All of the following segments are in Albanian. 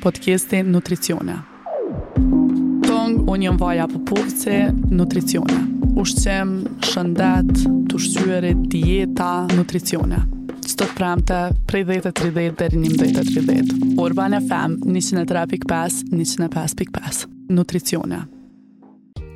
Podcasti Nutricione. Tong, unë jam Vaja Popovci, Nutricione. Ushqim, shëndet, të ushqyerit, dieta, nutricione. Çdo të premte, prej 10.30 deri 11.30. Urban FM, 103.5, 105.5. Nutricione.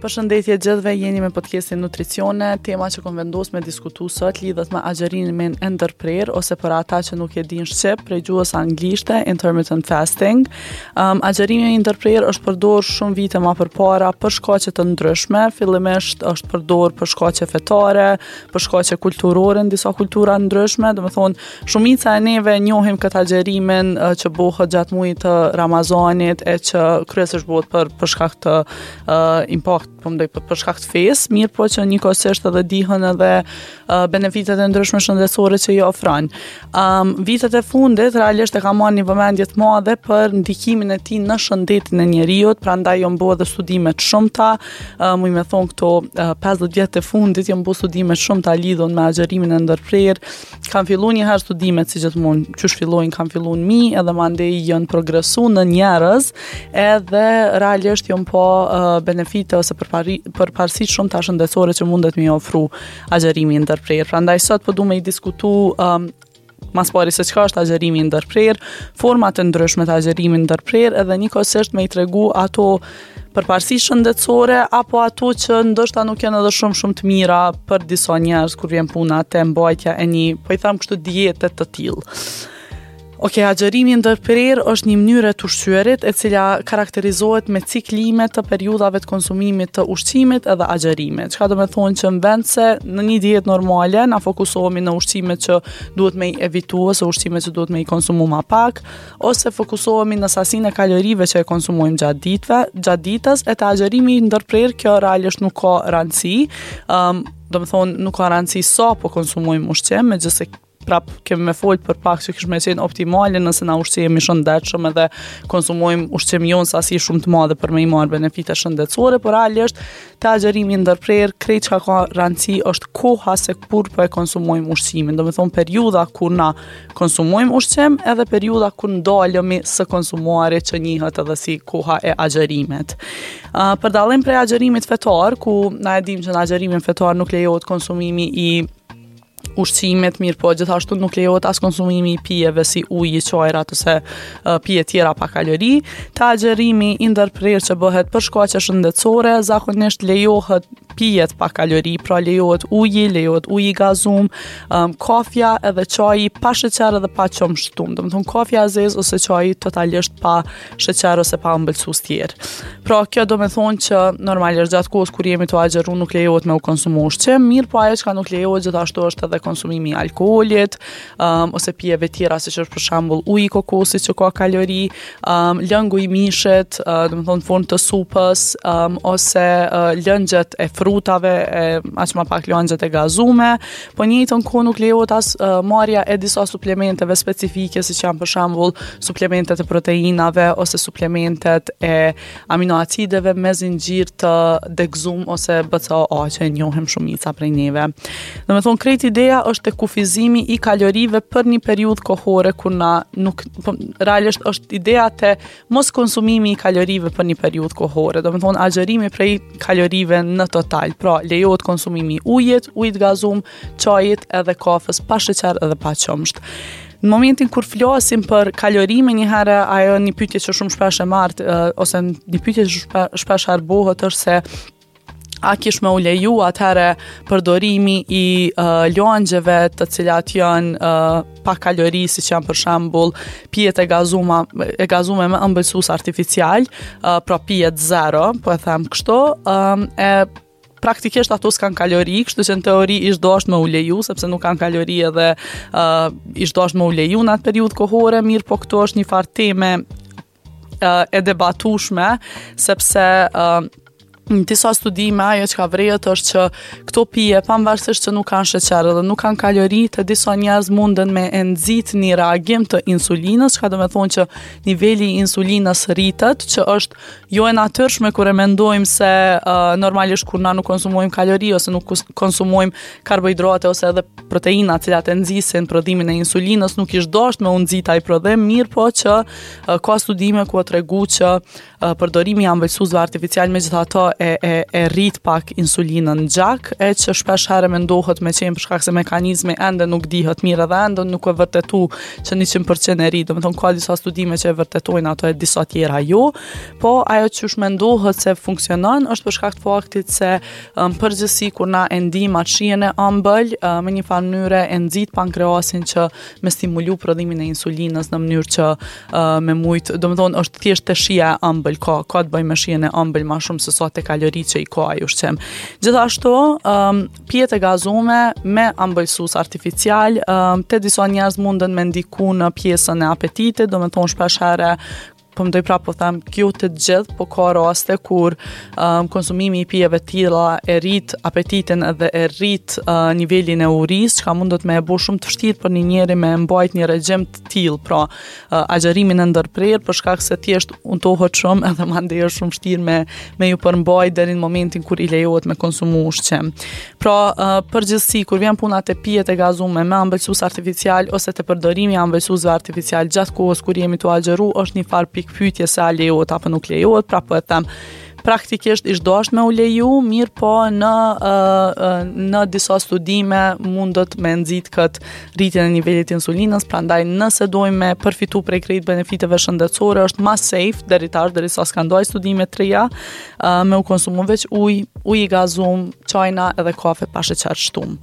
Përshëndetje gjithëve, jeni me podcastin Nutricione. Tema që kom vendos me diskutu sot lidhet me agjërimin e ndërprerë ose për ata që nuk e dinë shqip prej gjuhës anglishte, intermittent fasting. Um, agjërimi i ndërprerë është përdorur shumë vite ma përpara për shkaqe të ndryshme. Fillimisht është përdorur për shkaqe fetare, për shkaqe kulturore në disa kultura ndryshme, domethonë Shumica e neve njohim këtë agjërimin që bohët gjatë mujit të Ramazanit e që kryesisht bohët për, për shkak të uh, impact, po mendoj për, për shkak të fesë, mirëpo që njëkohësisht edhe dihen edhe uh, benefitet e ndryshme shëndetësore që i ofron. Um, vitet e fundit realisht e ka marrë një vëmendje të madhe për ndikimin e tij në shëndetin e njeriut, prandaj janë bo edhe studime të shumta, uh, muj me thonë këto uh, 50 vjet e fundit janë bo studime të shumta lidhun me agjërimin e ndërprerë, Kanë fillu një herë studimet si gjithmonë, qysh fillojnë kanë fillu në mi, edhe mandej janë progresu në njerëz, edhe realisht janë pa uh, benefite ose përpari, përparësi të shumta shëndetësore që mundet me i ofru agjërimi i ndërprerë. Prandaj sot po du me i diskutu um, mas pari se çka është agjërimi i ndërprerë, format e ndryshme të agjërimit ndërprerë edhe njëkohësisht me i tregu ato përparësi shëndetësore apo ato që ndoshta nuk janë edhe shumë shumë të mira për disa njerëz kur vjen puna te mbajtja e një, po i tham kështu diete të tillë. Ok, agjërimi i ndërprerë është një mënyrë e të ushqyerit e cila karakterizohet me ciklime të periudhave të konsumimit të ushqimit edhe agjërimit. Çka do me thonë që në vend se në një dietë normale na fokusohemi në ushqimet që duhet me i evitu ose ushqimet që duhet me i konsumu ma pak, ose fokusohemi në sasinë e kalorive që e konsumojmë gjatë ditëve, gjatë ditës, e te agjërimi i ndërprerë kjo realisht nuk ka rëndësi. Ëm, um, domethonë nuk ka rëndësi sa po konsumojmë ushqim, megjithëse prap kemi me fol për pak që kish me qenë optimale nëse na ushqehemi shëndetshëm edhe konsumojmë ushqim jo në sasi shumë të madhe për me i marrë benefite shëndetësore, por realisht te agjërimi i ndërprerë, krejt çka ka rëndësi është koha se kur po e konsumojmë ushqimin, domethonë periudha kur na konsumojmë ushqim edhe periudha kur ndalemi së konsumuari që njihet edhe si koha e agjërimit. Uh, për dallim prej agjërimit fetar, ku na e dimë që në agjërimin fetar nuk lejohet konsumimi i ushqimit, mirëpo gjithashtu nuk lejohet as konsumimi i pijeve si uji, çajrat ose uh, pije tjera pa kalori. Te agjërimi i ndërprerë që bëhet për shkaqe shëndetësore, zakonisht lejohet pijet pa kalori, pra lejohet uji, lejohet uji i gazum, um, kafja edhe çaji pa sheqer edhe pa qumësht shtum. Domethonë kafja e zezë ose çaji totalisht pa sheqer ose pa ëmbëlsues tjerë. Pra kjo do me thonë që normalisht gjatë kohës kur jemi tu agjëru nuk lejohet me u konsumu ushqim, mirëpo ajo çka nuk lejohet gjithashtu është edhe konsumimi i alkoolit, um, ose pijeve tjera siç është për shembull uji i kokosit që ka kalori, um, lëngu i mishit, uh, domethonë formë të supës, um, ose uh, lëngjet e frutave, e, aq ma pak lëngjet e gazume, po njëjtën kohë nuk lejohet as uh, marrja e disa suplementeve specifike, siç janë për shembull suplementet e proteinave ose suplementet e aminoacideve me zinxhir të degëzum ose BCAA që e njohim shumica prej neve. Domethonë, krejt ideja është te kufizimi i kalorive për një periudhë kohore kur na nuk, po, realisht është ideja te mos konsumimi i kalorive për një periudhë kohore. Domethonë, agjërimi prej kalorive në total. Pra, lejohet konsumimi i ujit, ujit gazum, çajit edhe kafës pa sheqer edhe pa qumësht. Në momentin kur flasim për kalori menjëherë ajo një pyetje që shumë shpesh e marr ose një pyetje që shpe, shpesh herë bohet është se a kish me u leju atëherë përdorimi i uh, lëngjeve të cilat janë uh, pa kalori, siç janë për shembull pijet e gazuma e gazume me ëmbëlsues artificial, uh, pra pijet zero, po e them kështu, um, e praktikisht ato s'kan kalori, kështu që në teori ish dashtë me u leju, sepse nuk kanë kalori edhe uh, ish dashtë me u leju në atë periudhë kohore, mirëpo këtu është një farë teme uh, e debatushme, sepse uh, Në disa studime ajo çka vërehet është që këto pije pavarësisht që nuk kanë sheqer dhe nuk kanë kalori, te disa njerëz munden me e nxit një reagim të insulinës, çka do me thonë që niveli i insulinës rritet, që është jo e natyrshme kur e mendojmë se uh, normalisht kur na nuk konsumojmë kalori ose nuk konsumojmë karbohidrate ose edhe proteina të cilat e nxisin prodhimin e insulinës, nuk ish dashtë me u nxit ai prodhim, mirëpo që uh, ka studime ku u tregu që Përdorimi i ëmbëlsuesve artificial megjithatë e, e, e rrit pak insulinën në gjak, e që shpesh herë mendohet me qenë për shkak se mekanizmi ende nuk dihet mirë edhe ende nuk e vërtetu që 100% e rrit, domethonë ka disa studime që e vërtetojnë ato e disa tjera jo, po ajo qysh mendohet se funksionon është për shkak të faktit se në përgjithësi kur na e ndijmë atë shijen e ëmbël, me një farë mënyre e nxit pankreasin që me stimulu prodhimin e insulinës në mënyrë që uh, me mujt, domethonë është thjesht te shija e ëmbël, ka, ka të bëjë me shijen e ëmbël ma shumë se sa te kaloritë që i ka ai ushqim. Gjithashtu, um, pijet e gazume me ëmbëlsues artificial, um, te disa njerëz munden me ndiku në pjesën e apetitit, domethonë shpesh herë po mendoj prapë po them, jo te të gjithë, po ka raste kur um, konsumimi i pijeve të tilla e rrit apetitin edhe e rrit uh, nivelin e urisë, çka mundet me e bo shumë të vështirë për një njeri me mbajt një regjim të tillë, pra uh, agjërimin e ndërprerë për shkak se thjesht untohet shumë edhe mandej është shumë vështirë me me ju përmbajt deri në momentin kur i lejohet me konsumu ushqim. Pra, uh, përgjithësi kur vjen puna te pijet e gazume me ëmbëlsues artificial ose te përdorimi i ëmbëlsuesve artificial gjatë kohës kur jemi tu agjëru është një farë pikëpyetje se a lejohet apo nuk lejohet, pra po e them praktikisht ish dasht me u leju, mirëpo në, uh, në disa studime mundet me nxit këtë rritjen e nivelit të insulinës, prandaj nëse dojmë me përfitu prej krejt benefiteve shëndetësore, është ma safe deri tash, derisa s'kan dalë studime të reja, uh, me u konsumu veç ujë, ujë i gazum, çajna edhe kafe pa sheqer shtum.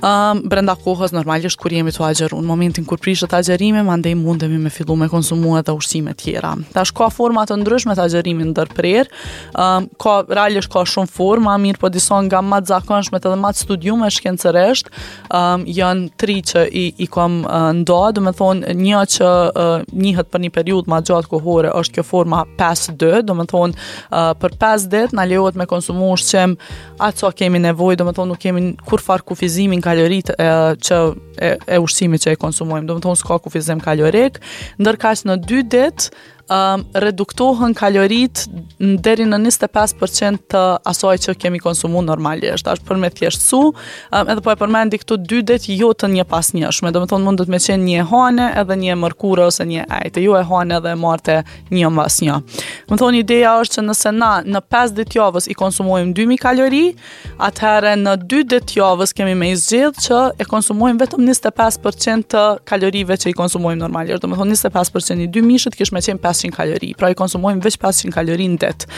Um, brenda kohës normalisht kur jemi tu agjëru, në momentin kur prishet agjërimi, mandej mundemi me fillu me konsumu edhe ushqime tjera. Tash ka forma të ndryshme të agjërimit ndërprerë, um, ka realisht ka shumë forma, mirëpo disa nga ma të zakonshmet edhe ma të studiume shkencërisht, um, janë tri që i, i kom uh, nda, domethonë një që uh, njihet për një periudhë ma gjatë kohore është kjo forma 5-2, domethonë uh, për 5 ditë na lejohet me konsumu ushqim aq sa kemi nevojë, domethonë nuk kemi kurrfarë kufizimi në kaloritë e, që e, e ushqimit që e konsumojmë, domethonë s'ka kufizim kalorik, ndërkaq në 2 ditë um, reduktohen kaloritë deri në 25% të asaj që kemi konsumu normalisht. Tash për me thjeshtësu, um, edhe po e përmendi këto dy ditë jo të njëpasnjëshme, domethonë mundet me qenë një e hane edhe një e mërkure ose një e ejte, jo e hane edhe e marte një mbas një. Domethonë ideja është që nëse na në 5 ditë javës i konsumojmë 2000 kalori, atëherë në 2 ditë javës kemi me i zgjedh që e konsumojmë vetëm 25% të kalorive që i konsumojmë normalisht. Domethonë 25% i 2 mijshit kish me qenë 500 kalori, pra i konsumojmë veç 500 kalori në ditë.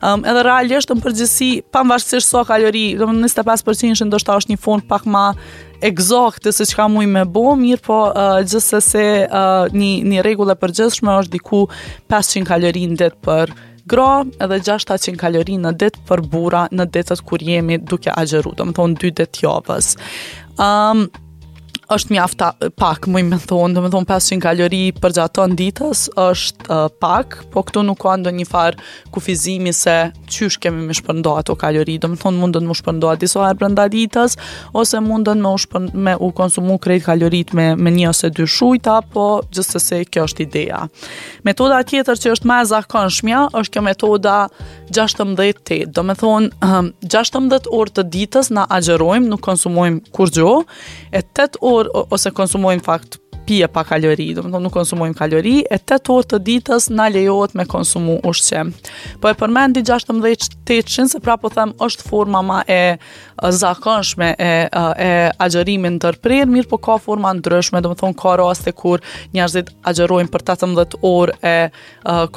Um, edhe realisht në përgjithësi, pavarësisht sa kalori, domethonë 25% ndoshta është një formë pak ma egzakte se çka muj me bo, mirëpo uh, gjithsesi uh, një, një rregull e përgjithshme është diku 500 kalori në ditë për gra edhe 600 kalori në ditë për burra në ditët kur jemi duke agjëru, domethonë dy ditë javës. Um, është mjaft pak, muj me thonë, domethonë 500 kalori përgjatë tonë ditës është uh, pak, po këtu nuk ka ndonjë farë kufizimi se qysh kemi me shpërnda ato kalori, domethonë mundën me u shpërnda disa herë brenda ditës, ose mundën me u, shpërn, me u konsumu krejt kalorit me, me një ose dy shujta, po gjithsesi kjo është ideja. Metoda tjetër që është ma e zakonshmja, është kjo metoda 16-8, domethonë 16 orë të ditës na agjërojmë, nuk konsumojmë kurgjo, e 8 orë ose konsumojmë fakt pije pa kalori, domethonë nuk konsumojmë kalori, e 8 orë të ditës na lejohet me konsumu ushqim. Po e përmendi 16 tetëshin, se pra po them është forma ma e zakonshme e, e agjërimit ndërprerë, mirëpo ka forma ndryshme, domethonë ka raste kur njerëzit agjërojnë për 18 orë e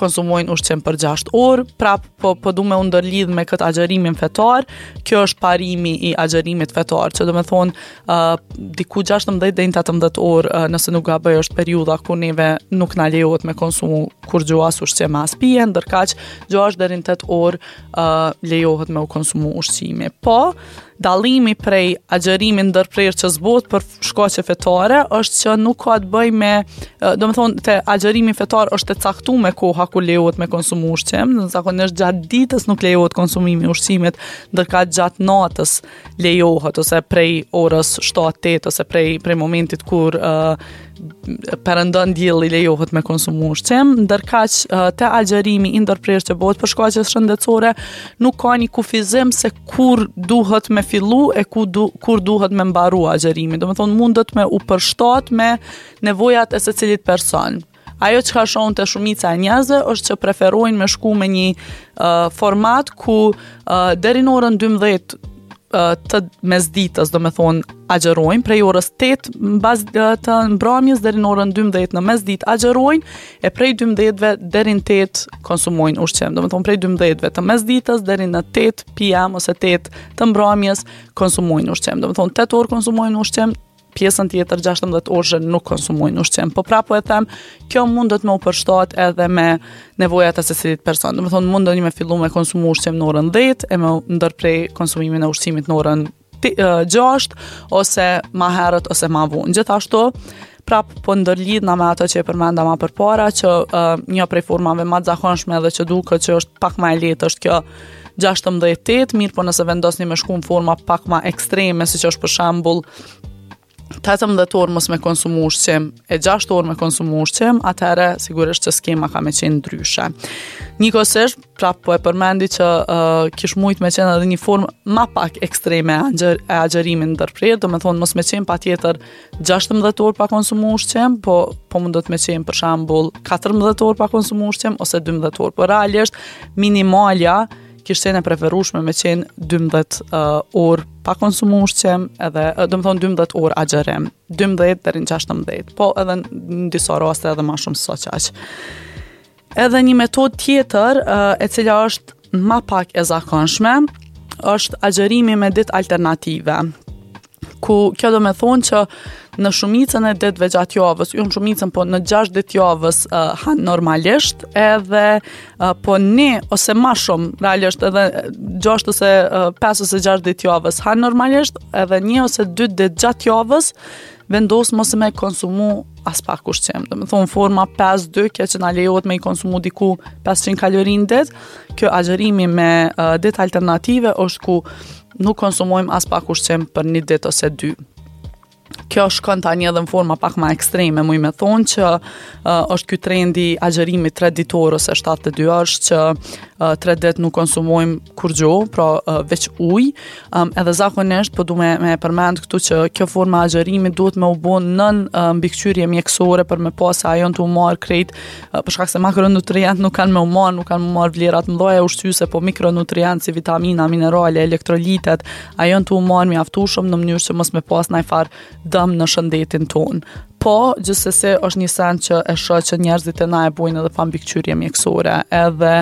konsumojnë ushqim për 6 orë, prap po, po du me u ndërlidh me këtë agjërimin fetar, kjo është parimi i agjërimit fetar, që domethonë uh, diku 16 deri në 18 orë, uh, nëse nuk gaboj është periudha kur neve nuk na lejohet me konsumu kurgjo as ushqim as pije, ndërkaq 6 deri në 8 orë uh, lejohet me u konsumu ushqimi. Po, Dallimi prej agjërimit ndërprerë që s'bohet për shkaqe fetare është që nuk ka të bëjë me, domethonë te agjërimi fetar është e caktume koha kur lejohet me konsumu ushqim, zakonisht gjatë ditës nuk lejohet konsumimi i ushqimit, ndërkaq gjatë natës lejohet ose prej orës 7-8 ose prej prej momentit kur uh, perëndon dielli lejohet me konsumu ushqim, ndërkaq te agjërimi i ndërprerë që bëhet për shkaqe shëndetësore, nuk ka një kufizim se kur duhet me fillu e ku du, kur duhet me mbaru agjërimi. Domethonë, mundet me u përshtat me nevojat e secilit person. Ajo çka shoh te shumica e njerëzve është që preferojnë me shku me një uh, format ku uh, deri në orën 12 të mesditës, domethonë, agjërojnë, prej orës 8 mbas të mbrëmjes deri në orën 12 në mesditë agjërojnë, e prej 12-ve deri në 8 konsumojnë ushqim. Domethonë, prej 12-ve të mesditës deri në 8 p.m. ose 8 të mbrëmjes konsumojnë ushqim. Domethonë, 8 orë konsumojnë ushqim, pjesën tjetër 16 orëshe nuk konsumojnë ushqim. Po prapë po e them, kjo mundet me u përshtat edhe me nevojat e secilit person. Domethonë, mundeni me fillu me konsumu ushqim në orën 10 e me ndërpre konsumimin e ushqimit në orën 6 ose ma herët ose ma vonë. Gjithashtu, prap po ndërlidhna me ato që e përmenda ma përpara që uh, një prej formave ma të zakonshme edhe që duket që është pak ma e lehtë është kjo 16-8, mirëpo nëse vendosni me shku në forma pak ma ekstreme, siç është për shembull 18 orë mos me konsumu ushqim e 6 orë me konsumu ushqim, atëherë sigurisht që skema ka me qenë ndryshe. Njëkohësisht, prap po e përmendi që uh, kish mujt me qenë edhe një formë ma pak ekstreme e, agjër, e agjërimit ndërprerë, domethonë mos me qenë patjetër 16 orë pa konsumu ushqim, po, po mundet me qenë për shembull 14 orë pa konsumu ushqim ose 12 orë. Po realisht minimalja kish qenë e preferueshme me qenë 12 uh, orë pa konsumu ushqim edhe domethonë 12 orë agjërim, 12 deri në 16, po edhe në disa raste edhe ma shumë se qaq. Edhe një metodë tjetër, e cila është ma pak e zakonshme, është agjërimi me ditë alternative. Ku kjo do me thonë që në shumicën e ditëve gjatë javës, jo në shumicën, po në 6 ditë javës uh, han normalisht, edhe uh, po një ose ma shumë, realisht edhe 6 ose uh, 5 ose 6 ditë javës han normalisht, edhe një ose 2 ditë gjatë javës vendos mos me konsumu aspak ushqim. Domethonë forma 5-2, kjo që na lejohet me i konsumu diku 500 kalori në ditë, kjo agjërimi me uh, ditë alternative është ku nuk konsumojmë aspak ushqim për një ditë ose dy. Kjo shkon tani edhe në forma pak ma ekstreme, muj me thonë që uh, është ky trendi i agjërimit 3 ditor ose 72 orësh që uh, 3 ditë nuk konsumojmë kurgjo, pra uh, veç ujë, Um, edhe zakonisht, po du me, me përmend këtu që kjo forma e agjërimit duhet me u bo nën uh, mbikëqyrje mjekësore për me pa se a janë tu u marrë krejt, uh, për shkak se makronutrient nuk kanë me u marrë, nuk kanë me u marrë vlerat mëdha ushqyese, po mikronutrient si vitamina, minerale, elektrolitet, a janë tu u marrë mjaftueshëm në mënyrë që mos me pas najfarë dëm në shëndetin tonë. Po, gjithsesi është një send që e shoh që njerëzit e na e bojnë edhe pa mbikëqyrje mjekësore, edhe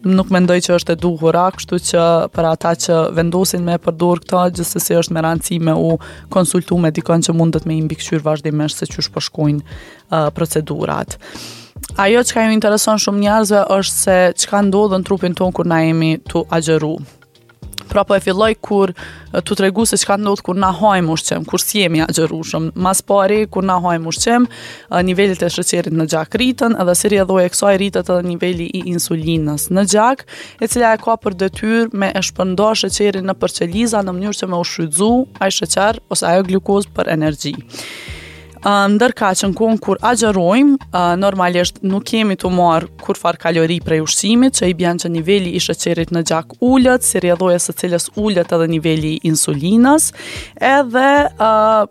nuk mendoj që është e duhura, kështu që për ata që vendosin me përdor këto, gjithsesi është me rëndësi me u konsultu me dikon që mundet me i mbikëqyr vazhdimisht se qysh po shkojnë uh, procedurat. Ajo çka ju intereson shumë njerëzve është se çka ndodh në trupin tonë kur na jemi tu agjëru. Pra po e filloj kur tu tregu se çka ndodh kur na hajmë ushqim, kur s'jemi agjërueshëm. Mas pari kur na hajmë ushqim, nivelet e sheqerit në gjak rriten, edhe si rrjedhojë e kësaj rritet edhe niveli i insulinës në gjak, e cila e ka për detyrë me e shpërnda sheqerin nëpër qeliza në mënyrë që me u shfrytzu ai sheqer ose ajo glukozë për energji. Ndërkaq në kohën kur agjërojmë, normalisht nuk jemi tu marrë kurrfarë kalori prej ushqimit, që i bjen që niveli i sheqerit në gjak ulet, si rrjedhojë e së cilës ulet edhe niveli i insulinës, edhe uh,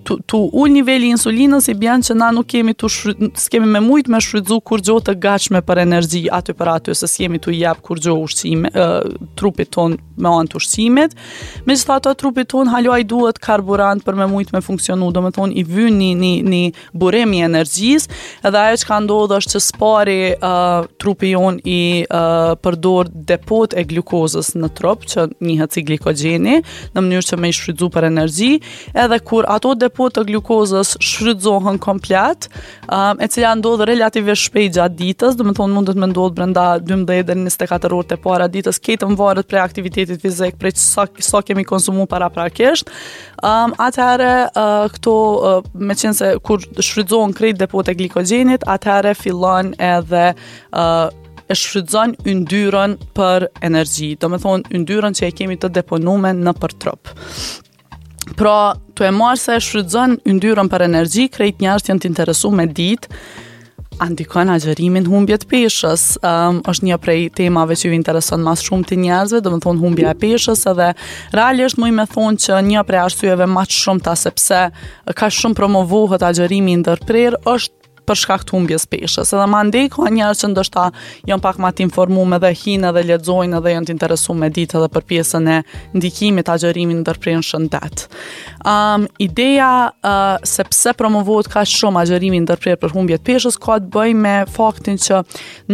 tu, tu ul niveli i insulinës i bjen që na nuk kemi tu s'kemi me mujt me shfrytzu kurgjo të gatshme për energji aty për aty se s'jemi tu i jap kurgjo ushqime uh, trupit ton me anë të ushqimit. Megjithatë trupit tonë hala i duhet karburant për me mujt me funksionu, domethonë i vyn një, një, një burim i energjisë, edhe ajo çka ndodh është që s'pari uh, trupi jonë i uh, përdor depot e glukozës në trup, që njihet si glikogjeni, në mënyrë që me i shfrytzu për energji, edhe kur ato ato depo të glukozës shfrytëzohen komplet, um, e cila ndodh relativisht shpejt gjatë ditës, domethonë mundet me ndodh brenda 12 deri 24 orë të para ditës, krejt varet prej aktivitetit fizik, prej sa, sa kemi konsumu paraprakisht. Um, atëherë uh, këto uh, meqenëse kur shfrytëzohen krejt depot e glikogjenit, atëherë fillon edhe uh, e shfrytëzon yndyrën për energji, domethonë yndyrën që e kemi të deponume nëpër trup. Pra, tu e marrë se e shfrytëzon yndyrën për energji, krejt njerëzit janë të interesu me ditë, a ndikon agjërimi n'humbje të peshës. Um, është një prej temave që ju intereson ma s'shumti njerëzve, domethonë humbja e peshës edhe realisht muj me thonë që një prej arsyeve ma të shumta sepse kaq shumë promovohet agjërimi i ndërprerë është për shkak të humbjes peshës. Edhe mandej ka njerëz që ndoshta janë pak ma të informuar edhe hinë edhe lexojnë edhe janë të interesuar me ditë edhe për pjesën e ndikimit të agjërimit ndërprerë në shëndet. Um, ideja uh, se pse promovohet kaq shumë agjërimi i ndërprerë për humbje të peshës ka të bëjë me faktin që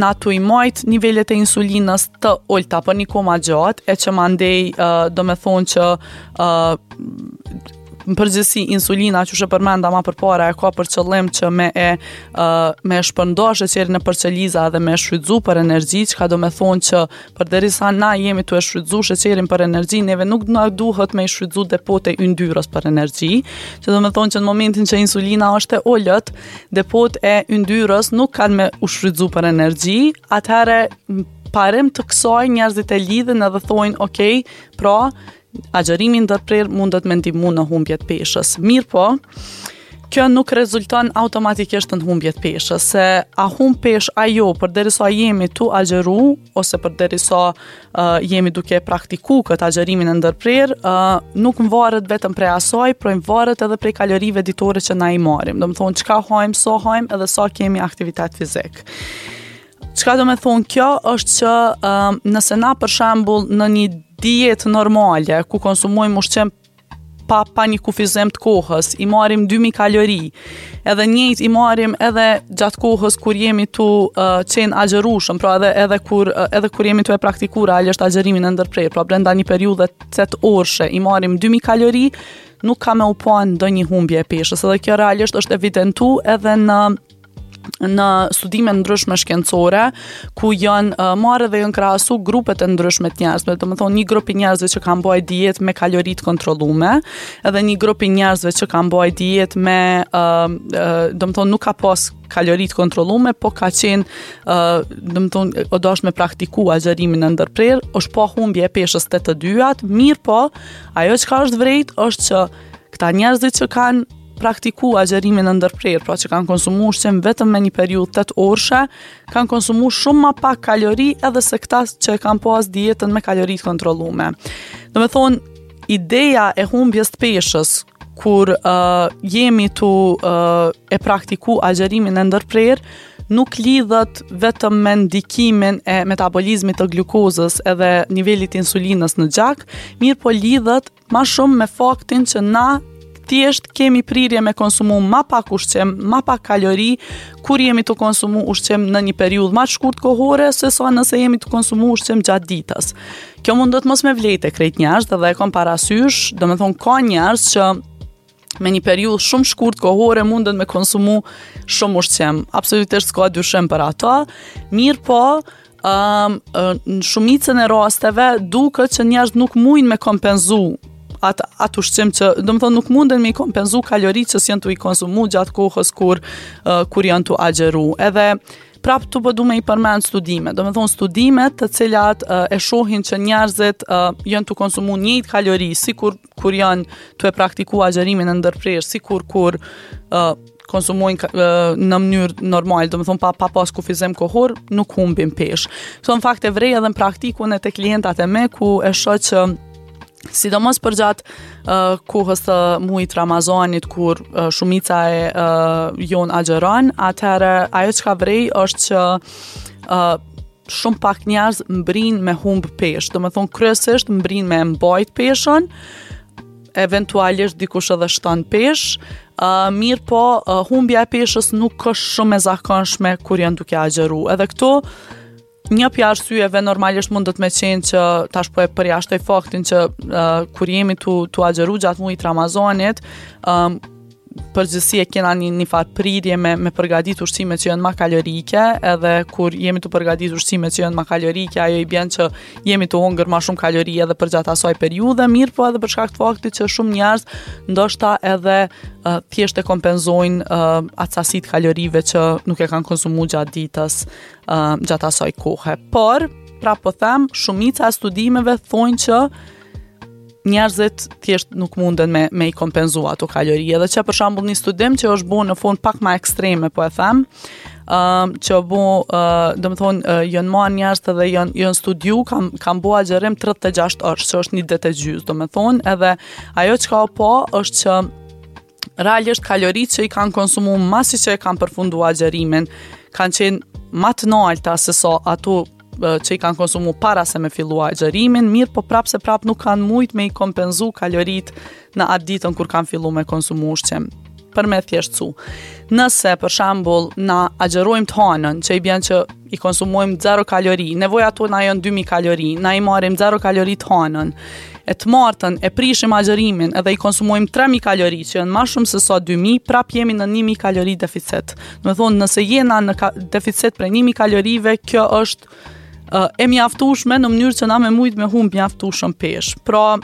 na tu i majt nivelet e insulinës të ulta për një kohë ma gjatë e që mandej uh, domethonë që uh, në përgjithësi insulina që e përmenda ma përpara e ka për qëllim që me e uh, me e shpërnda sheqerin nëpër qeliza dhe me e shfrytzu për energji, çka do me thonë që përderisa na jemi tu e shfrytzu sheqerin për energji, neve nuk na duhet me i shfrytzu depot e yndyrës për energji, që do me thonë që në momentin që insulina është e ulët, depot e yndyrës nuk kanë me u shfrytzu për energji, atëherë parim të kësaj njerëzit e lidhin edhe thonë, ok, pra, Agjërimi i ndërprerë mundet me ndihmu në humbje të peshës. Mirëpo, kjo nuk rezulton automatikisht në humbje të peshës, se a humb peshë a jo, përderisa jemi tu agjëru, ose përderisa uh, jemi duke praktiku këtë agjërimin e ndërprerë, uh, nuk varet vetëm prej asaj, por varet edhe prej kalorive ditore që na i marrim. Domethonë, çka hajmë, sa hajmë edhe sa kemi aktivitet fizik. Çka do me thonë kjo është që um, nëse na për shembull në një dietë normale ku konsumojmë ushqim pa, pa një kufizim të kohës, i marrim 2000 kalori, edhe njëjtë i marrim edhe gjatë kohës kur jemi tu uh, qenë agjërushëm, pra edhe, edhe, kur, uh, edhe kur jemi tu e praktiku realisht agjërimin e ndërprerë, pra brenda një periudhe 8 orëshe i marrim 2000 kalori, nuk ka me u pa ndonjë humbje e peshës, edhe kjo realisht është evidentu edhe në në studime ndryshme shkencore ku janë uh, marrë dhe janë krahasu grupet e ndryshme të njerëzve, domethonë një grup i njerëzve që kanë bajt dietë me kalori të kontrollume, edhe një grup i njerëzve që kanë bajt dietë me uh, uh, domethonë nuk ka pas kalori të kontrollume, po ka qenë, uh, domethonë, o dasht me praktiku agjërimin e ndërprerë, është pa humbje e peshës te të dyjat, mirëpo, ajo çka është vrejt është që këta njerëzit që kanë praktiku agjërimin e ndërprerë, pra që kanë konsumu ushqim vetëm me një periudhë 8 orëshe, kanë konsumu shumë ma pak kalori edhe se këta që e kanë pas dietën me kalori të kontrollume. Domethonë, ideja e humbjes të peshës, kur uh, jemi tu uh, e praktiku agjërimin e ndërprerë, nuk lidhet vetëm me ndikimin e metabolizmit të glukozës edhe nivelit insulinës në gjak, mirëpo lidhet Ma shumë me faktin që na thjesht kemi prirje me konsumu ma pak ushqim, ma pak kalori, kur jemi tu konsumu ushqim në një periudhë ma të shkurt kohore, se sa nëse jemi tu konsumu ushqim gjatë ditës. Kjo mundet mos me vlejt te krejt njerëz dhe e kom parasysh, domethonë ka njerëz që me një periudhë shumë shkurt kohore munden me konsumu shumë ushqim. Absolutisht s'ka dyshim për ato. Mirëpo, um, në shumicën e rasteve duket që njerëz nuk mujnë me kompenzu atë at ushqim që, domethonë nuk munden me i kompenzu kaloritë që s'janë tu i konsumu gjatë kohës kur, uh, kur janë tu agjëru. Edhe prap tu po du me i përmend studime. Domethonë studimet të cilat uh, e shohin që njerëzit uh, janë tu konsumu njëjtë kalori, sikur kur janë tu e praktiku agjërimin e ndërprerë, sikur kur uh, konsumojnë uh, në mënyrë normale, domethonë pa, pa pas kufizim kohor, nuk humbin peshë. Këto në fakt e vrej edhe në praktikun e te klientat e mi, ku e shoh që sidomos përgjatë uh, kohës të muajit Ramazanit kur uh, shumica e uh, jonë agjëron, atëherë ajo çka vrej është që uh, shumë pak njerëz mbrin me humb peshë. Domethonë kryesisht mbrin me mbajt peshën, eventualisht dikush edhe shton peshë, uh, mirëpo uh, humbja e peshës nuk është shumë e zakonshme kur janë duke agjëru. Edhe këtu. Një prej arsyeve normalisht mundet me qenë që tash po e përjashtoj faktin që uh, kur jemi tu, tu agjëru gjatë mujit Ramazanit, um, përgjithësi e kena një, një farë prirje me, me përgadit ushqime që janë ma kalorike, edhe kur jemi tu përgadit ushqime që janë ma kalorike, ajo i bjen që jemi tu hongër ma shumë kalori edhe përgjatë asaj periudhe, mirëpo edhe për shkak të faktit që shumë njerëz ndoshta edhe uh, thjesht e kompenzojnë uh, atë sasi të kalorive që nuk e kanë konsumu gjatë ditës, uh, gjatë asaj kohe. Por, prapë po them, shumica e studimeve thonë që njerëzit thjesht nuk munden me, me i kompenzu ato kalori. Edhe që për shembull një studim që është bo në formë pak ma ekstreme, po e them, um, që është bo, uh, domethonë, uh, janë marrë njerëz edhe janë, janë studiu, kam, kam bo agjërim 36 orë, që është një ditë e gjysë, domethonë, edhe ajo çka u pa është që realisht kaloritë që i kanë konsumu masi që e kanë përfundu agjërimin, kanë qenë ma të nalta se sa ato që i kanë konsumu para se me fillu agjërimin, mirëpo prapë se prapë nuk kanë mujt me i kompenzu kaloritë në atë ditën kur kanë fillu me konsumu ushqim për me thjeshtësu. Nëse, për shembull, na agjërojmë të hanën, që i bjen që i konsumojmë 0 kalori, nevojat tona janë 2000 kalori, na i marrim 0 kalori të hanën, e të martën e prishim agjërimin edhe i konsumojmë 3000 kalori, që janë ma shumë se sa 2000, prap jemi në 1000 kalori deficit. Domethonë, nëse jena në ka deficit prej 1000 kalorive, kjo është uh, e mjaftueshme në mënyrë që na me mujt me humb mjaftueshëm peshë. Pra,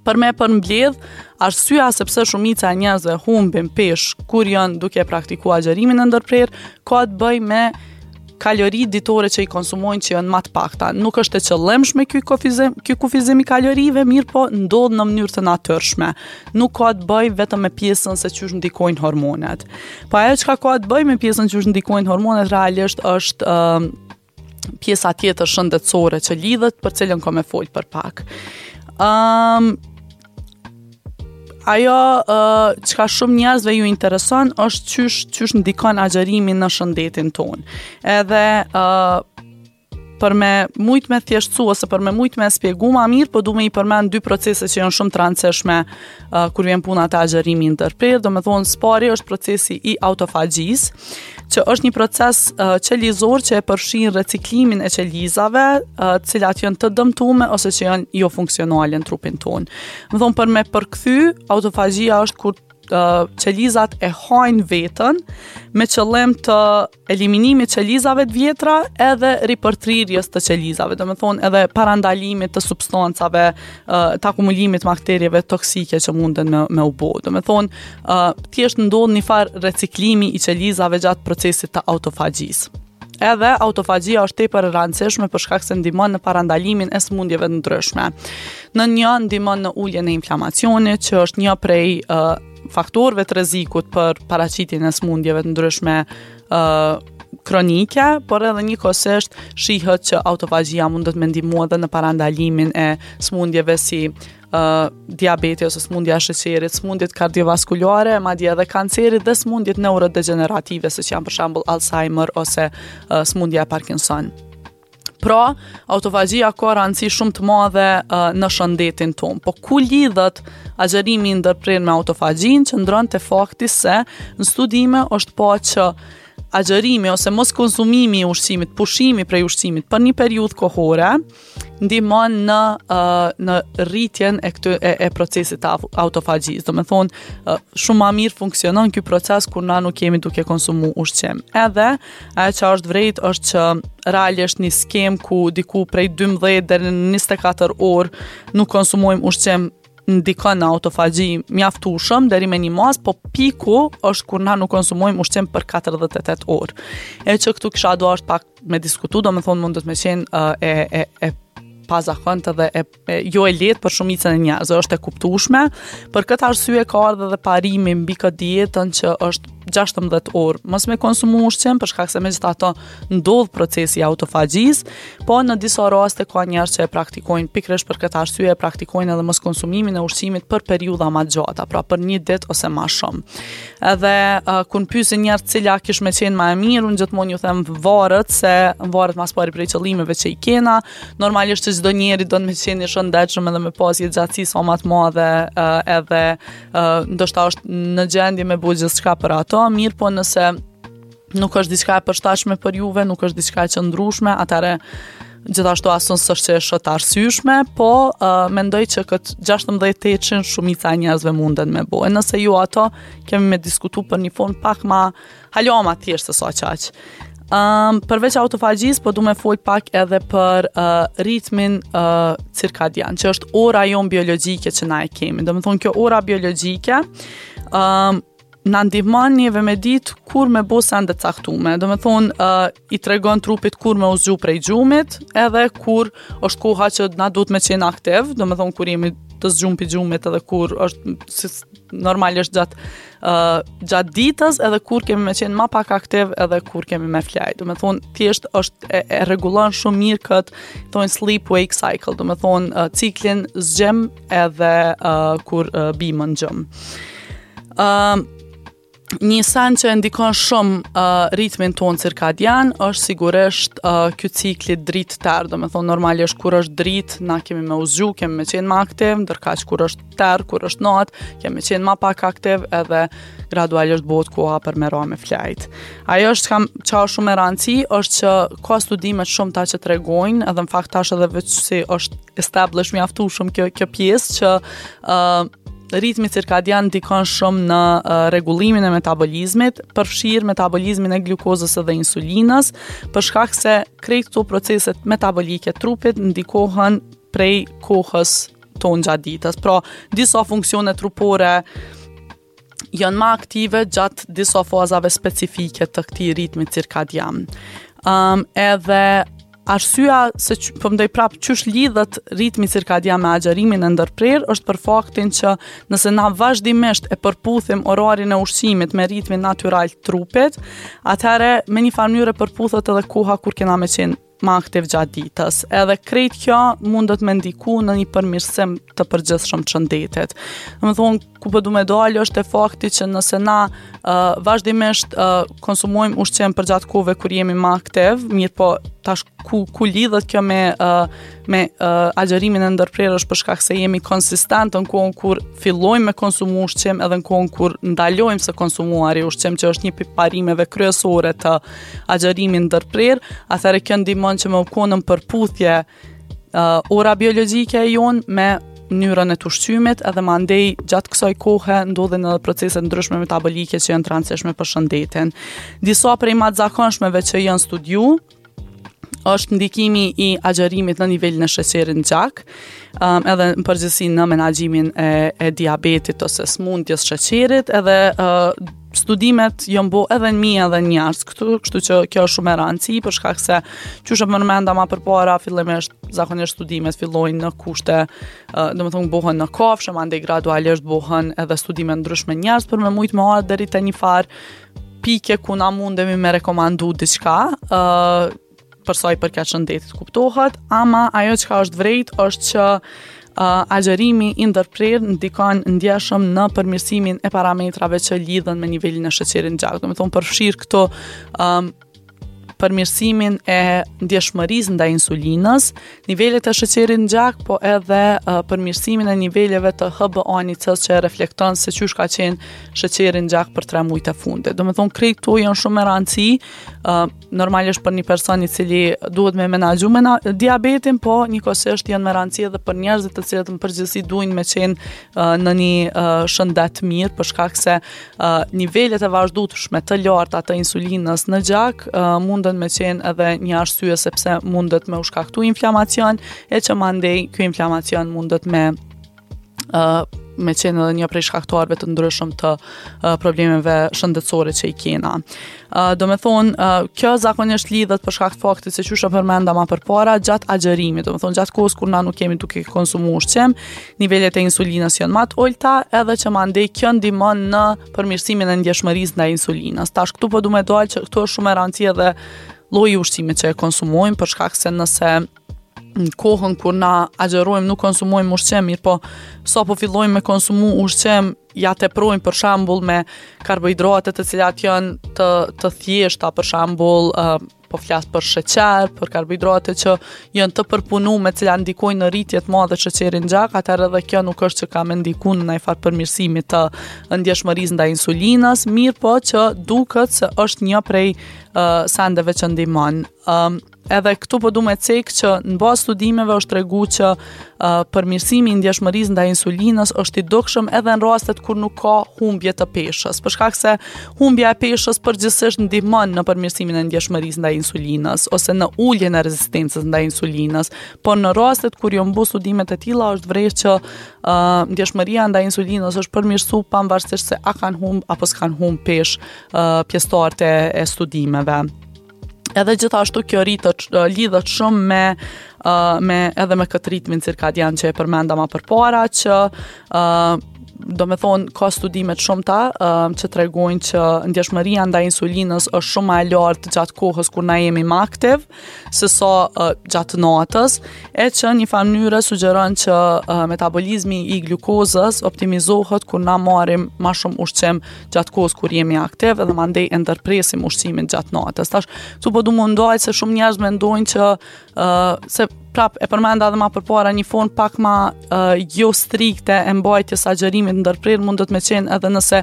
për me përmbledh, arsyeja se pse shumica e njerëzve humbin peshë kur janë duke praktiku agjërimin e ndërprerë, ka të bëjë me kalori ditore që i konsumojnë që janë ma të pakta. Nuk është e qëllimshme ky kufizim, ky kufizim i kalorive, mirëpo ndodh në mënyrë të natyrshme. Nuk ka të bëjë vetëm me pjesën se qysh ndikojnë hormonet. Po ajo çka ka të bëjë me pjesën qysh ndikojnë hormonet realisht është uh, pjesa tjetër shëndetësore që lidhet për cilën kom me fol për pak. Um, ajo uh, çka shumë njerëzve ju intereson është qysh qysh ndikon agjërimi në shëndetin tonë. Edhe uh, për me mujt me thjeshtësu ose për me mujt me spjegu ma mirë, po du me i përmend dy procese që janë shumë të rëndësishme uh, kur vjen puna te agjërimi i ndërprerë, domethonë s'pari është procesi i autofagjisë, që është një proces uh, qelizor që e përfshin reciklimin e qelizave, uh, të cilat janë të dëmtume ose që janë jo funksionale në trupin tonë. Domethonë për me përkthy, autofagjia është kur uh, qelizat e hajnë veten me qëllim të eliminimit qelizave të vjetra edhe ripërtrirjes të qelizave, domethonë edhe parandalimit të substancave, të akumulimit të bakterieve toksike që munden me, me u bo. Domethonë, thjesht ndodh një farë reciklimi i qelizave gjatë procesit të autofagjisë. Edhe autofagjia është tepër e rëndësishme për shkak se ndihmon në parandalimin e sëmundjeve të ndryshme. Në një ndihmon në uljen e inflamacionit, që është një prej uh, faktorëve të rrezikut për paraqitjen e sëmundjeve të ndryshme ë uh, kronike, por edhe njëkohësisht shihet që autofagjia mundet me ndihmu edhe në parandalimin e sëmundjeve si uh, diabeti ose sëmundja e sheqerit, sëmundjet kardiovaskulare, madje edhe kancerit dhe sëmundjet neurodegjenerative, siç janë për shembull Alzheimer ose uh, sëmundja e Parkinson. Pra, autofagjia ka rëndësi shumë të madhe uh, në shëndetin tonë. Po ku lidhet agjërimi i ndërprerë me autofagjinë, qëndron te fakti se në studime është pa që agjërimi ose mos konsumimi i ushqimit, pushimi prej ushqimit për një periudhë kohore, ndihmon në uh, në rritjen e këtë e, e procesit të autofagjisë. Domethonë, uh, shumë ma mirë funksionon ky proces kur na nuk jemi duke konsumu ushqim. Edhe Ajo që është vrejt është që realisht një skemë ku diku prej 12 deri në 24 orë nuk konsumojmë ushqim ndikon në autofagji mjaftueshëm deri me një masë, po piku është kur na nuk konsumojmë ushqim për 48 orë. E që këtu kisha dasht pak me diskutu, domethonë mundet me qenë uh, e, e, e pazakontë dhe e e, jo e lehtë për shumicën e njerëzve, është e kuptueshme. Për këtë arsye ka ardhur edhe parimi mbi këtë dietën që është 16 orë mos me konsumu ushqim për shkak se megjithatë ndodh procesi i autofagjisë, po në disa raste ka njerëz që e praktikojnë pikërisht për këtë arsye e praktikojnë edhe mos konsumimin e ushqimit për periudha më të gjata, pra për një ditë ose më shumë. Edhe uh, kur më pyesin njerëz cila kish me qenë më e mirë, unë gjithmonë ju them varet se varet ma s'pari prej qëllimeve që i kena, Normalisht që çdo njeri don me qenë i shëndetshëm edhe me pas jetëgjatësi sa ma të madhe edhe ndoshta është në gjendje me bo gjithçka për ato, mirëpo nëse. nuk është diçka e përshtatshme për juve, nuk është diçka e qëndrueshme, atëherë gjithashtu as unë s'është që e shoh të arsyeshme, po uh, mendoj që këtë 16 tetëshin shumica e njerëzve munden me bo. E nëse jo ato, kemi me diskutu për një formë pak ma, hala ma thjesht se sa qaq. Um, përveç autofagjisë, po du me fol pak edhe për uh, ritmin uh, cirkadian, që është ora jonë biologjike që na e kemi. Domethonë, kjo ora biologjike, um, na ndihmon neve me ditë kur me bo sende të caktume. Domethonë, uh, i tregon trupit kur me u zgju prej gjumit, edhe kur është koha që na duhet me qenë aktiv, domethonë, kur jemi të zgjum prej gjumit edhe kur është si, normalisht gjatë uh, gjatë ditës edhe kur kemi me qenë ma pak aktiv edhe kur kemi me flejt. Domethonë, thjesht është e, e rregullon shumë mirë këtë, thonë sleep wake cycle, domethonë, uh, ciklin zgjim edhe uh, kur uh, bimë në gjumë. Uh, një sen që e ndikon shumë uh, ritmin tonë cirkadian është sigurisht uh, ky cikli dritë terr, domethonë normalisht kur është dritë, na kemi me u zgju, kemi me qenë ma aktiv, ndërkaq kur është terr, kur është natë, kemi me qenë ma pak aktiv edhe gradualisht bëhet koha për me ra me flejt. Ajo është kam, që është shumë e rëndësi, është që ka studime të shumta që tregojnë, edhe në fakt tash edhe veç si është establish mjaftueshëm kjo kjo pjesë që uh, ritmi cirkadian ndikon shumë në uh, rregullimin e metabolizmit, përfshirë metabolizmin e glukozës edhe insulinës, për shkak se krejt këto proceset metabolike të trupit ndikohen prej kohës tonë gjatë ditës. Pra, disa funksione trupore janë ma aktive gjatë disa fazave specifike të këtij ritmi cirkadian. Um, edhe arsyeja se që, po mendoj prap qysh lidhet ritmi cirkadian me agjërimin e ndërprerë është për faktin që nëse na vazhdimisht e përputhim orarin e ushqimit me ritmin natyral të trupit, atëherë me një farë mënyre përputhet edhe koha kur kena me qenë ma aktiv gjatë ditës. Edhe krejt kjo mundet me ndiku në një përmirësim të përgjithshëm të shëndetit. Domethonë, ku po du me dalë është e fakti që nëse na uh, vazhdimisht uh, konsumojmë ushqim përgjatë kohëve kur jemi ma aktiv, mirëpo tash ku, ku lidhet kjo me, uh, me uh, agjërimin e ndërprerë është për shkak se jemi konsistent në kohën kur fillojmë me konsumu ushqim edhe në kohën kur ndalojmë së konsumuari ushqim që është një prej parimeve kryesore të agjërimit ndërprerë, atëherë kjo ndihmon që me u konë në përputhje uh, ora biologjike e jonë me mënyrën e të ushqymit edhe mandej gjatë kësaj kohe ndodhin edhe procese ndryshme metabolike që janë të rëndësishme për shëndetin. Disa prej ma të zakonshmeve që janë studiu është ndikimi i agjërimit në nivelin e sheqerit në gjak, um, edhe në përgjithësi në menaxhimin e, e diabetit ose sëmundjes sheqerit, edhe uh, studimet janë bo edhe në mi edhe në njerëz këtu, kështu që kjo është shumë e rëndësi për shkak se qysh e përmenda ma përpara fillimisht zakonisht studimet fillojnë në kushte, uh, domethonë bohen në kafshë, mandej gradualisht bohen edhe studime ndryshme njerëz për me mujt me ardhë deri te një farë pike ku na mundemi me rekomandu diçka, uh, për sa i përket shëndetit kuptohet, ama ajo çka është vrejt është që uh, agjërimi i ndërprerë ndikon ndjeshëm në përmirësimin e parametrave që lidhen me nivelin e sheqerit në gjak. Domethonë përfshirë këto um, përmirësimin e ndjeshmërisë ndaj insulinës, nivelet e sheqerit në gjak, po edhe uh, përmirësimin e niveleve të HbA1c që reflekton se qysh ka qenë sheqeri në gjak për 3 muajt e fundit. Domethonë krejt këto janë shumë me rëndësi, uh, normalisht për një person i cili duhet me menaxhu me na, diabetin, po njëkohësisht janë me rëndësi edhe për njerëzit të cilët në përgjithësi duin me qenë uh, në një uh, shëndet mirë, për shkak se uh, nivelet e vazhdueshme të larta të insulinës në gjak uh, munden me qenë edhe një arsye sepse mundet me u shkaktu inflamacion e që mandej ky inflamacion mundet me uh, me qenë edhe një prej shkaktarëve të ndryshëm të uh, problemeve shëndetësore që i kena. Uh, domethonë, uh, kjo zakonisht lidhet për shkak të faktit se qysh e përmenda ma përpara gjatë agjërimit, domethonë gjatë kohës kur na nuk jemi duke konsumu ushqim, nivelet e insulinës janë ma të ulta, edhe që mandej kjo ndihmon në përmirësimin e ndjeshmërisë ndaj insulinës. Tash këtu po du me dalë që këtu është shumë e rëndësi edhe lloji i ushqimit që e konsumojmë për shkak se nëse në kohën kur na agjërojmë nuk konsumojmë ushqim, mirëpo sa po fillojmë me konsumu ushqim, ja teprojmë për shembull me karbohidrate të cilat janë të të thjeshta, për shembull uh, Po flas për sheqer, për karbohidrate që janë të përpunume, të cilat ndikojnë në rritje të madhe sheqerin në gjak, atëherë edhe kjo nuk është që ka me ndiku në najfarë përmirësimi të ndjeshmërisë ndaj insulinës, mirëpo që duket se është një prej uh, sendeve që ndihmon. Um, edhe këtu po du me cek që në bazë studimeve është tregu që uh, përmirësimi i ndjeshmërisë ndaj insulinës është i dukshëm edhe në rastet kur nuk ka humbje të peshës, për shkak se humbja e peshës përgjithsisht ndihmon në përmirësimin e ndjeshmërisë ndaj insulinës ose në uljen e rezistencës ndaj insulinës, por në rastet kur janë bo studimet e tilla është vrejt që uh, ndjeshmëria ndaj insulinës është përmirësu pavarësisht se a kanë humb apo s'kanë humb peshë uh, pjesëtarët e, e studimeve. Edhe gjithashtu kjo rritet lidhet shumë me uh, me edhe me këtë ritmin cirkadian që e përmenda ma përpara që uh, do me thonë, ka studime të shumta uh, që tregojnë që ndjeshmëria ndaj insulinës është shumë ma e lartë gjatë kohës kur na jemi më aktiv, se sa uh, gjatë natës, e që një farë mënyre sugjeron që uh, metabolizmi i glukozës optimizohet kur na marrim ma shumë ushqim gjatë kohës kur jemi aktiv edhe mandej e ndërpresim ushqimin gjatë natës. Tash, këtu po du m'u ndal se shumë njerëz mendojnë që uh, se prap e përmenda edhe ma përpara një formë pak ma uh, jo strikte e mbajtjes së agjërimit ndërprerë mundet me qenë edhe nëse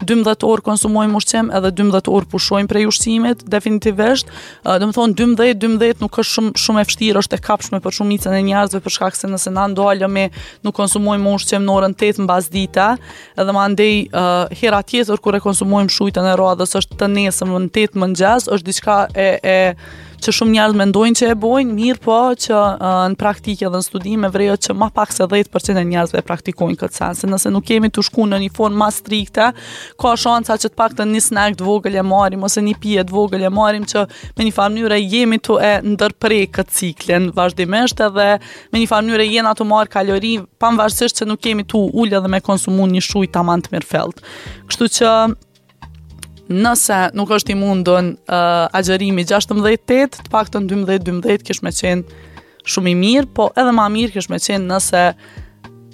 12 orë konsumojmë ushqim edhe 12 orë pushojmë prej ushqimit definitivisht uh, domethonë 12 12 nuk është shumë shumë e vështirë është e kapshme për shumicën e njerëzve për shkak se nëse na ndalemi nuk konsumojmë ushqim në orën 8 mbasdite edhe mandej uh, hera tjetër kur e konsumojmë shujtën e radhës është të nesërmen në 8 mëngjes, është diçka e e që shumë njerëz mendojnë që e bojnë, mirëpo që uh, në praktikë edhe në studime vrehet që ma pak se 10% e njerëzve e praktikojnë këtë sen, se nëse nuk jemi tu shku në një formë ma strikte, ka shansa që të paktën një snack të vogël e marrim ose një pije të vogël e marrim që me një farë mënyre jemi tu e ndërpre këtë ciklin vazhdimisht edhe me një farë mënyre jena tu marrë kalori, pavarësisht që nuk jemi tu ulë edhe me konsumu një shujtë taman të mirëfillt. Kështu që nëse nuk është i mundun uh, agjërimi 16-8, të paktën 12-12 kish me qenë shumë i mirë, po edhe ma mirë kish me qenë nëse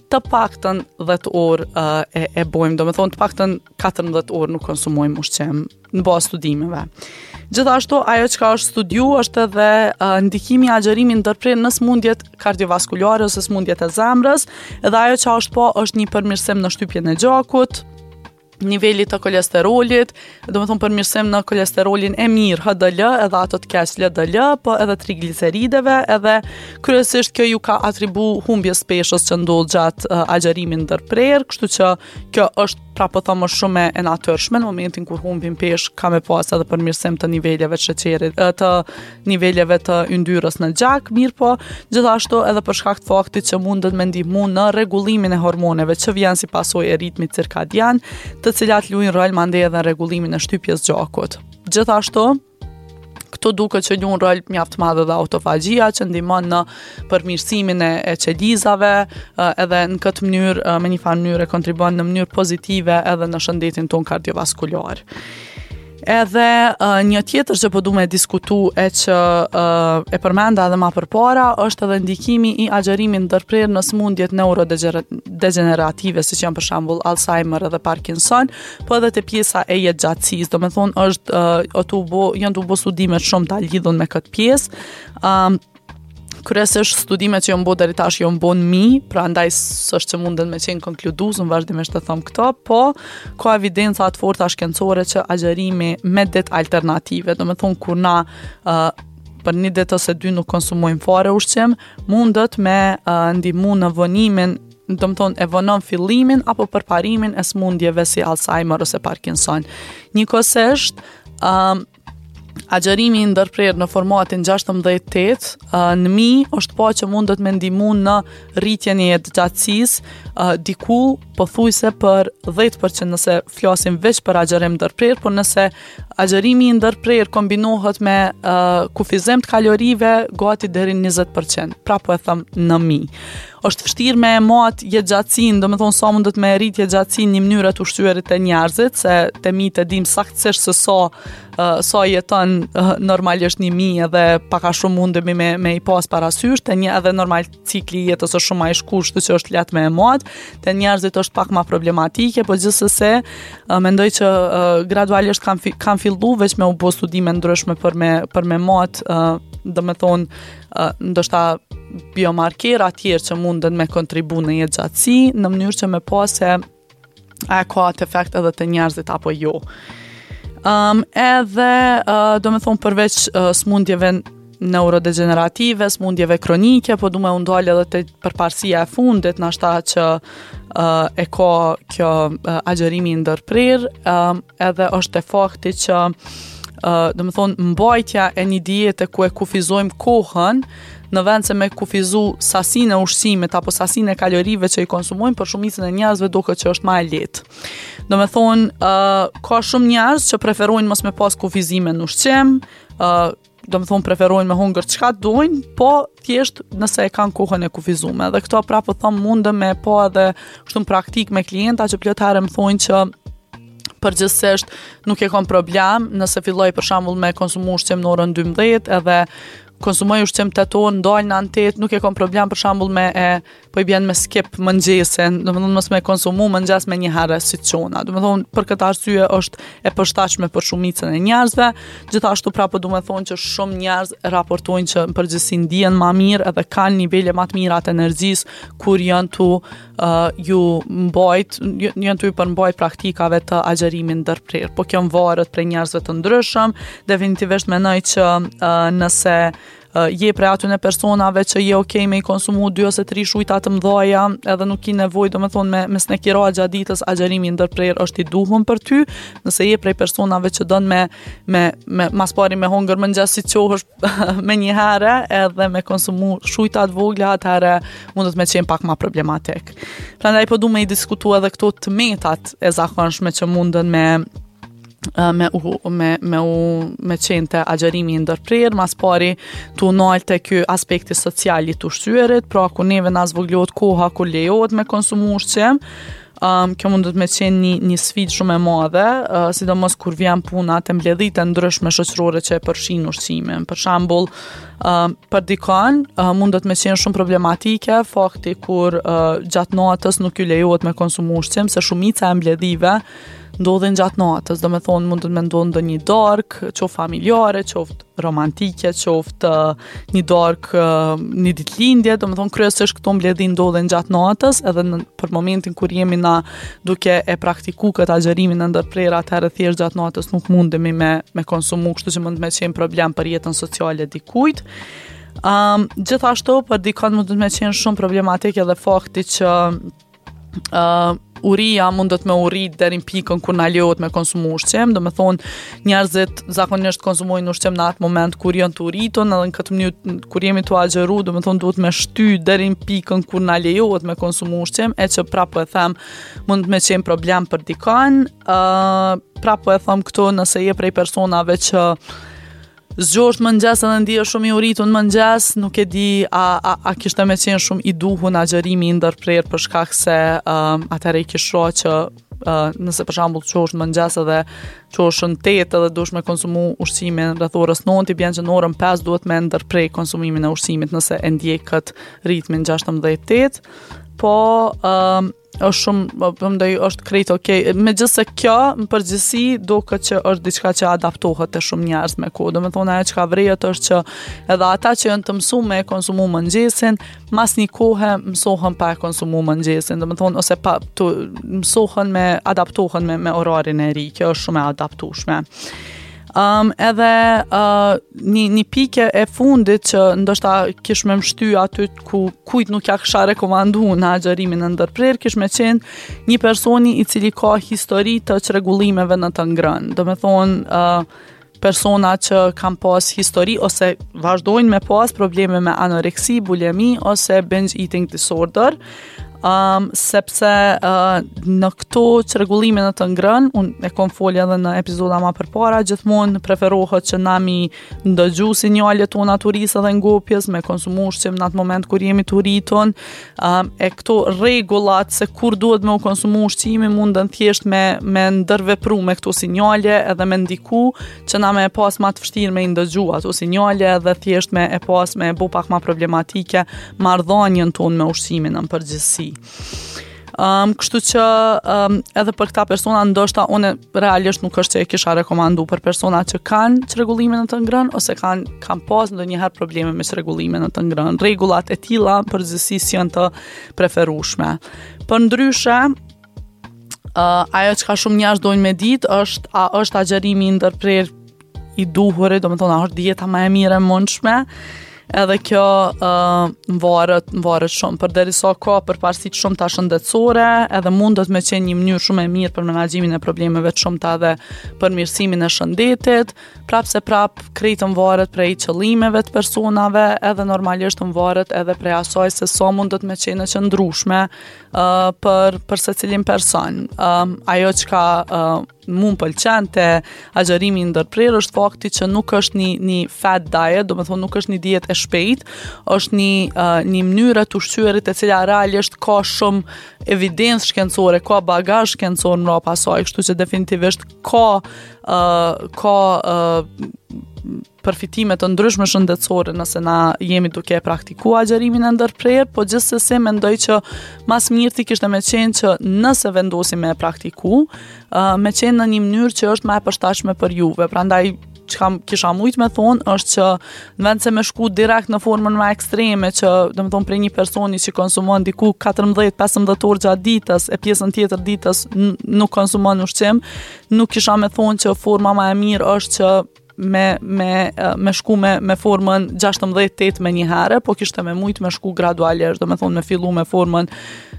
të paktën 10 orë uh, e, e bojmë, domethonë të paktën 14 orë nuk konsumojmë ushqim në bazë studimeve. Gjithashtu, ajo çka është studiu është edhe uh, ndikimi i agjërimit ndërprerë në sëmundjet kardiovaskulare ose sëmundjet e zemrës, edhe ajo çka është pa është një përmirësim në shtypjen e gjakut, nivelit të kolesterolit, domethonë përmirësim në kolesterolin e mirë HDL, edhe ato të keq LDL, po edhe triglicerideve, edhe kryesisht kjo ju ka atribu humbjes peshës që ndodh gjatë uh, agjërimit ndërprerë, kështu që kjo është pra po thom është shumë e natyrshme në momentin kur humbim peshë ka me pas edhe përmirësim të niveleve të sheqerit, të niveleve të yndyrës në gjak, mirëpo gjithashtu edhe për shkak të faktit që mundet me ndihmu në rregullimin e hormoneve që vjen si pasojë e ritmit cirkadian, të cilat luajnë rol mandej edhe në rregullimin e shtypjes gjakut. Gjithashtu, Këtu duket që luan rol mjaft të madh edhe autofagjia që ndihmon në përmirësimin e, e qelizave, edhe në këtë mënyrë me një farë mënyre kontribuon në mënyrë pozitive edhe në shëndetin tonë kardiovaskular. Edhe uh, një tjetër që po du me diskutu e që uh, e përmenda edhe ma përpara është edhe ndikimi i agjërimit ndërprerë në sëmundjet neurodegjenerative, siç janë për shembull Alzheimer edhe Parkinson, po edhe te pjesa e jetëgjatësisë, domethonë është uh, tu bo, janë tu bo studime të shumta lidhun me këtë pjesë. Um, kryesisht studimet që janë bo deri tash janë bo në mi, prandaj s'është që munden me qenë konkludues, unë vazhdimisht e them këto, po ka evidenca të forta shkencore që agjërimi me ditë alternative, domethonë kur na uh, për një ditë ose dy nuk konsumojmë fare ushqim, mundet me uh, ndihmu në vonimin domethonë e vonon fillimin apo përparimin e sëmundjeve si Alzheimer ose Parkinson. Njëkohësisht, um, agjërimi i ndërprerë në formatin 16-8 uh, në mi është pa që mundet me ndihmu në rritjen e jetëgjatësisë uh, diku pothuajse për 10% nëse flasim veç për agjërim ndërprerë, por nëse agjërimi i ndërprerë kombinohet me uh, kufizim të kalorive gati deri në 20%, pra po e them në mi. Është vështirë me e mat jetëgjatësinë, domethonë sa mundet me rrit jetëgjatësinë një mënyrë e të ushqyerit te njerëzit, se te mitë e dim saktësisht se sa uh, sa jeton uh, normalisht një mi edhe pak a shumë mundemi me, me i pas parasysh, te një edhe normal cikli i jetës është shumë ma i shkurt, kështu që është lehtë me e mat, te njerëzit është pak ma problematike, po gjithsesi uh, mendoj që uh, gradualisht kanë fi, kanë fillu veç me u bo studime ndryshme për me për me mat, uh, domethonë uh, ndoshta biomarkera tjerë që munden me kontribu në jetëgjatësi, në mënyrë që me pa se a e ka atë efekt edhe te njerëzit apo jo. Um, edhe, uh, domethonë, përveç uh, smundjeve neurodegjenerative, smundjeve kronike, po du me u ndalë edhe te përparësia e fundit, nashta që uh, e ka kjo uh, agjërimi i ndërprerë, um, edhe është te fakti që uh, domethonë, mbajtja e një diete ku e kufizojmë kohën, në vend se me kufizu sasinë e ushqimit apo sasinë e kalorive që i konsumojmë, për shumicën e njerëzve duket që është ma e lehtë. Domethonë, uh, ka shumë njerëz që preferojnë mos me pas kufizime në ushqim, uh, domethonë preferojnë me hongër çka dojnë, po thjesht nëse e kanë kohën e kufizume. Dhe këto prapë po thom mundem me pa edhe kështu në praktikë me klienta që plot herë më thonë që përgjithsisht nuk e kam problem nëse filloj për shembull me konsumu ushqim në orën 12 edhe konsumoj ushqim 8 orë, ndalna në 8, nuk e kam problem për shembull me e po i bjen me skip mëngjesin, domethonë mos me konsumu mëngjes menjëherë si t'çona. Domethonë për këtë arsye është e përshtatshme për shumicën e njerëzve. Gjithashtu prapë du me thonë që shumë njerëz raportojnë që në përgjithësi ndihen ma mirë edhe kanë nivele ma të mira të energjisë kur janë tu uh, ju mbajt, janë tu ju përmbajt praktikave të agjërimit ndërprerë. Po kjo varet prej njerëzve të ndryshëm, definitivisht mendoj që uh, nëse je prej atyne personave që je okej me i konsumu dy ose tri shujta të mdhaja edhe nuk ki nevojë domethonë me, me snekira gjatë ditës agjërimi i ndërprerë është i duhun për ty nëse je prej personave që don me, me, me mas pari me hongër mëngjes si çohesh menjëherë edhe me konsumu shujta të vogla atëherë mundet me qenë pak ma problematik prandaj po du me i diskutu edhe këto të metat e zakonshme që munden me me u me me u me qenë te agjërimi i ndërprerë, mas pari tu u nalë te ky aspekti social i të ushqyerit, pra ku neve na zvoglohet koha kur lejohet me konsumu ushqim, um, kjo mundet me qenë një, një sfidë shumë e madhe, uh, sidomos kur vjen puna te mbledhjet e ndryshme shoqërore që e përfshijnë ushqimin. Për shembull, uh, për dikon uh, mundet me qenë shumë problematike fakti kur uh, gjatë natës nuk ju lejohet me konsumu ushqim, se shumica e mbledhjeve ndodhin gjatë natës, domethonë mundet me ndodhë ndonjë darkë, qoftë familjare, qoftë romantike, qoftë një darkë, një ditëlindje, domethonë kryesisht këto mbledhje ndodhin gjatë natës, edhe në, për momentin kur jemi na duke e praktiku këtë agjërimin e ndërprerë, atëherë thjesht gjatë natës nuk mundemi me, me konsumu, kështu që mund me qenë problem për jetën sociale dikujt. Um, gjithashtu, për dikon mundet me qenë shumë problematik edhe fakti që uh, uria mundet me u rrit deri në pikën kur na lejohet me konsumu ushqim, domethonë njerëzit zakonisht konsumojnë ushqim në atë moment kur janë të uritun, edhe në këtë mënyrë kur jemi tu agjëru, domethonë duhet me shty deri në pikën kur na lejohet me konsumu ushqim, e që prapë po e them mund me qenë problem për dikon, uh, prapë po e them këtu nëse je prej personave që Zgjohesh në mëngjes edhe ndihesh shumë i uritun në mëngjes, nuk e di a, a, a kishte me qenë shumë i duhun agjërimi i ndërprerë për shkak se um, atëherë i kish ra që uh, nëse për shembull çohesh në mëngjes edhe çohesh në 8 edhe duhesh me konsumu ushqimin rreth orës 9, i bjen që në orën 5 duhet me ndërpre konsumimin e ushqimit nëse e ndjek këtë ritmin 16-8. Po um, është shumë, po, po mendoj është krejt okej. Okay. Megjithëse kjo në përgjithësi duket që është diçka që adaptohet te shumë njerëz me kohë. Domethonë ajo çka vërehet është që edhe ata që janë të mësuar me konsumu mëngjesin, mas një kohe mësohen pa e konsumu mëngjesin, domethonë ose pa të mësohen me adaptohen me me orarin e ri. Kjo është shumë e adaptueshme. Um, edhe uh, një, një pikë e fundit që ndoshta kish me m'shty aty ku kujt nuk ja kisha rekomandu në agjërimin e ndërprerë, kish me qenë një personi i cili ka histori të çrregullimeve në të ngrënë. Domethonë, uh, persona që kanë pas histori ose vazhdojnë me pas probleme me anoreksi, bulimi ose binge eating disorder. Um, sepse uh, në këto çrregullime në të ngrënë, unë e kom folë edhe në epizoda ma përpara, gjithmonë preferohet që na mi ndëgju sinjalet tona të urisë edhe ngopjes, me konsumu ushqim në atë moment kur jemi të uritun, um, e këto rregullat se kur duhet me u konsumu ushqimi munden thjesht me, me ndërvepru me këto sinjale edhe me ndiku që na me e pas ma të vështirë me i ndëgju ato sinjale edhe thjesht me e pas me e bo pak ma problematike marrëdhënien tonë me ushqimin në përgjithësi. Um, kështu që um, edhe për këta persona ndoshta unë realisht nuk është që e kisha rekomandu për persona që kanë çrregullime në të ngrënë ose kanë kanë pas ndonjëherë probleme me çrregullime në të ngrënë. Rregullat e tilla në përgjithësi s'janë të preferueshme. Përndryshe, uh, ajo çka shumë njerëz dojnë me ditë është a është agjërimi i ndërprerë i duhuri, domethonë, a është dieta ma e mirë e mundshme, edhe kjo uh, varet, varet shumë, përderisa ka përparësi të shumta shëndetësore, edhe mundet me qenë një mënyrë shumë e mirë për menaxhimin e problemeve të shumta dhe përmirësimin e shëndetit, prapë se prapë krejt varet prej qëllimeve të personave, edhe normalisht varet edhe prej asaj se sa mundet me qenë e qëndrueshme uh, për, për secilin person. Um, ajo çka uh, mu më pëlqen te agjërimi i ndërprerë është fakti që nuk është një një fad diet, domethonë nuk është një dietë e shpejtë, është një uh, një mënyrë e të ushqyerit e cila realisht ka shumë evidencë shkencore, ka bagazh shkencor mbrapa saj, kështu që definitivisht ka uh, ka uh, përfitime të ndryshme shëndetësore nëse na jemi duke e praktiku agjërimin e ndërprerë, po gjithsesi mendoj që ma s'mirti kishte me qenë që nëse vendosim me e praktiku, uh, me qenë në një mënyrë që është ma e përshtatshme për juve. Prandaj çka kisha mujt me thonë është që në vend se me shku direkt në formën më ekstreme që domethonë prej një personi që konsumon diku 14-15 orë gjatë ditës e pjesën tjetër ditës nuk konsumon ushqim, nuk kisha me thonë që forma më e mirë është që me me me shku me me formën 16 8 menjëherë, po kishte me mujt me shku gradualisht, domethonë me fillu me formën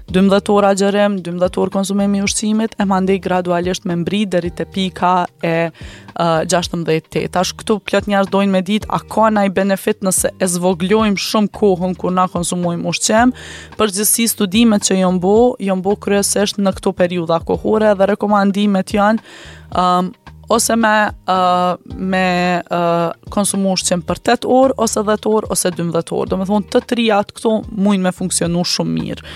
12 orë agjërim, 12 orë konsumim i ushqimit, e mandej gradualisht me mbri deri te pika e uh, 16 8. Tash këtu plot njerëz dojnë me ditë a ka naj benefit nëse e zvoglojmë shumë kohën kur na konsumojmë ushqim. Përgjithësi studimet që janë bo, janë bo kryesisht në këto periudha kohore dhe rekomandimet janë um, ose me uh, me uh, konsumu ushqim për 8 orë ose 10 orë ose 12 orë. Domethonë të trijat këto mujnë me funksionu shumë mirë.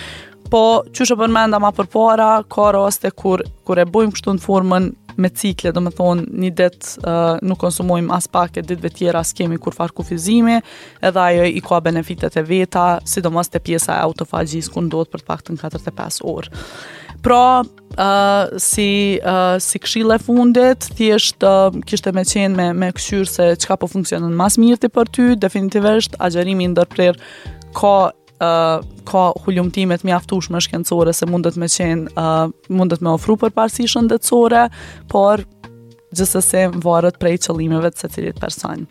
Po, qysh e përmenda ma përpara, ka raste kur, kur e bojmë kështu në formën me cikle, domethonë një ditë uh, nuk konsumojmë aspak e ditëve tjera s'kemi kurrfarë kufizimi, edhe ajo i ka benefitet e veta, sidomos te pjesa e autofagjisë ku ndodh për të paktën 45 orë. Pra, uh, si uh, si këshillë e fundit, thjesht uh, kishte me qenë me me kqyr se çka po funksionon ma s'mirti për ty, definitivisht agjërimi i ndërprerë ka uh, ka hulumtime të mjaftueshme shkencore se mundet me qenë uh, mundet me ofru përparësi shëndetësore, por Gjithsesi varet prej qëllimeve të secilit person.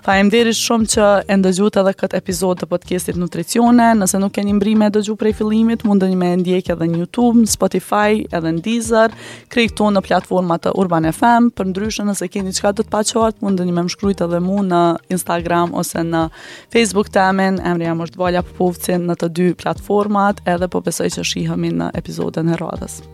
Faleminderit shumë që e ndëgjuat edhe këtë epizod të podcastit Nutricione. Nëse nuk keni mbri me dëgju prej fillimit, mundeni me ndjek edhe në YouTube, në Spotify, edhe në Deezer, krejt këto në platformat të Urban FM. Përndryshe, nëse keni diçka të paqartë, mundeni me më shkrujt edhe mu në Instagram ose në Facebook temin, emri jem është Valja Popovci në të dy platformat, edhe po besoj që shihemi në epizodën e radhës.